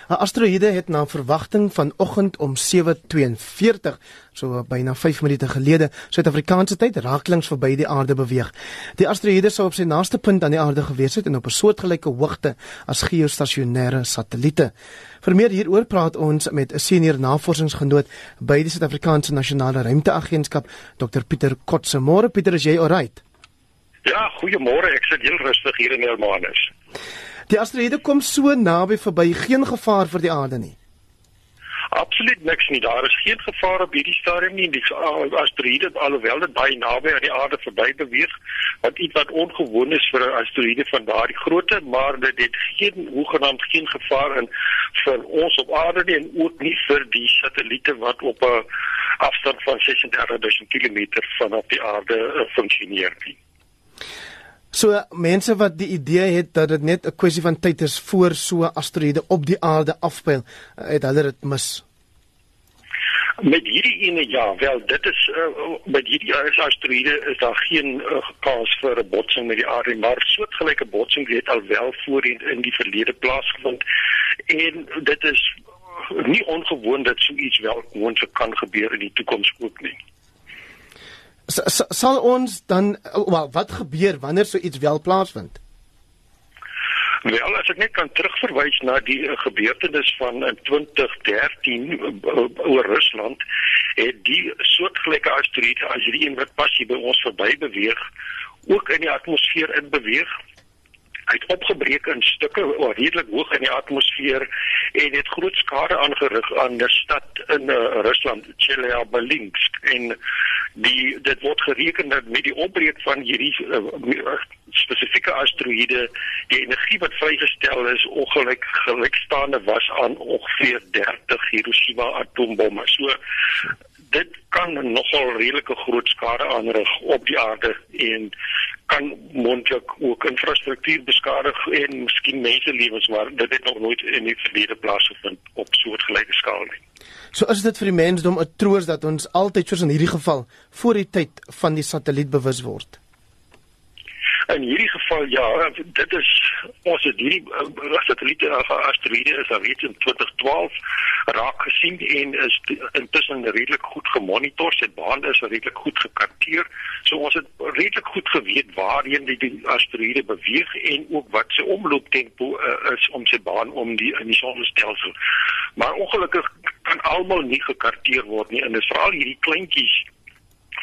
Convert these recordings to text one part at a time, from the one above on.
'n Asteroïde het na verwagting vanoggend om 7:42, so byna 5 minute gelede, Suid-Afrikaanse tyd, rakelings verby die aarde beweeg. Die asteroïde sou op sy naaste punt aan die aarde gewees het en op 'n soortgelyke hoogte as geostasionêre satelliete. Vir meer hieroor praat ons met 'n senior navorsingsgenoot by die Suid-Afrikaanse Nasionale Ruimteagentskap, Dr. Pieter Kotse. Môre Pieter, is jy alright? Ja, goeiemôre, ek sit heel rustig hier in Hermanus. Die asteroïde kom so naby verby, geen gevaar vir die aarde nie. Absoluut niks nie, daar is geen gevaar op hierdie stadium nie. Die asteroïde, alhoewel dit baie naby aan die aarde verby beweeg, wat iets wat ongewoon is vir 'n asteroïde van daardie grootte, maar dit het hoegenaamd geen gevaar in vir ons op aarde nie, en ook nie vir die satelliete wat op 'n afstand van 36.000 kilometer vanaf die aarde funksioneer nie. So mense wat die idee het dat dit net 'n kwessie van tyd is voor so 'n asteroïde op die aarde afpyl, het hulle dit mis. Met hierdie ene ja, wel dit is met hierdie asteroïde is daar geen kans vir 'n botsing met die aarde, maar soortgelyke botsing het al wel voorheen in die verlede plaasgevind, en dit is nie ongewoon dat so iets wel moontlik kan gebeur in die toekoms ook nie. Sal ons dan, wat gebeur wanneer so iets wel plaasvind? Wel, as ek net kan terugverwys na die gebeurtenis van 2013 oor Rusland, het die soortgelyke asteroïde as hierdie een wat pas hier by ons verby beweeg, ook in die atmosfeer in beweeg. Hy het opgebreek in stukke, redelik hoog in die atmosfeer, en het groot skade aangerig aan 'n stad in Rusland, Chelyabinsk, en dit word gereken dat met die opbreek van hierdie spesifieke asteroïde, die energie wat vrygestel is gelykstaande was aan ongeveer 30 Hiroshima atoombomme. So dit kan nogal redelike groot skade aanrig op die aarde en kan moontlik ook infrastruktuur beskadig en miskien menselewens, maar dit het nog nooit in die verlede plaasgevind op soortgelyke skaal nie. So is dit vir die mensdom 'n troos dat ons altyd, soos in hierdie geval, voor die tyd van die satelliet bewus word? In hierdie geval ja, dit is ons het hierdie satelliete asteroïde is al reeds in 2012 raak gesien en is intussen redelik goed gemonitor, sy baan is redelik goed gekarteer, so ons het redelik goed geweet waarheen die asteroïde beweeg en ook wat sy omlooptempo is om sy baan om in die sonnestelsel. Maar ongelukkig kan almal nie gekarteer word nie, en dit is veral hierdie kleintjies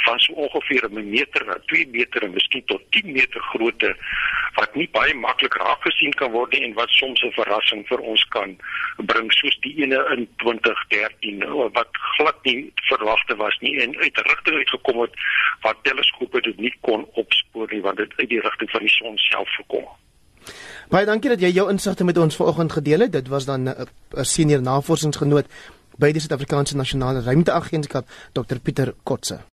van so ongeveer 1 meter na 2 meter en miskien tot 10 meter grootte, wat nie baie maklik raak gesien kan word nie en wat soms 'n verrassing vir ons kan bring, soos die ene in 2013, wat glad nie verwagte was nie en uit 'n rigting uitgekom het wat teleskope dit nie kon opspoor nie, want dit uit die rigting van die son self gekom. Baie dankie dat jy jou insigte met ons vanoggend gedeel het. Dit was dan 'n senior navorsingsgenoot by die Suid-Afrikaanse Nasionale Ruimteagentskap, Dr. Pieter Kotse.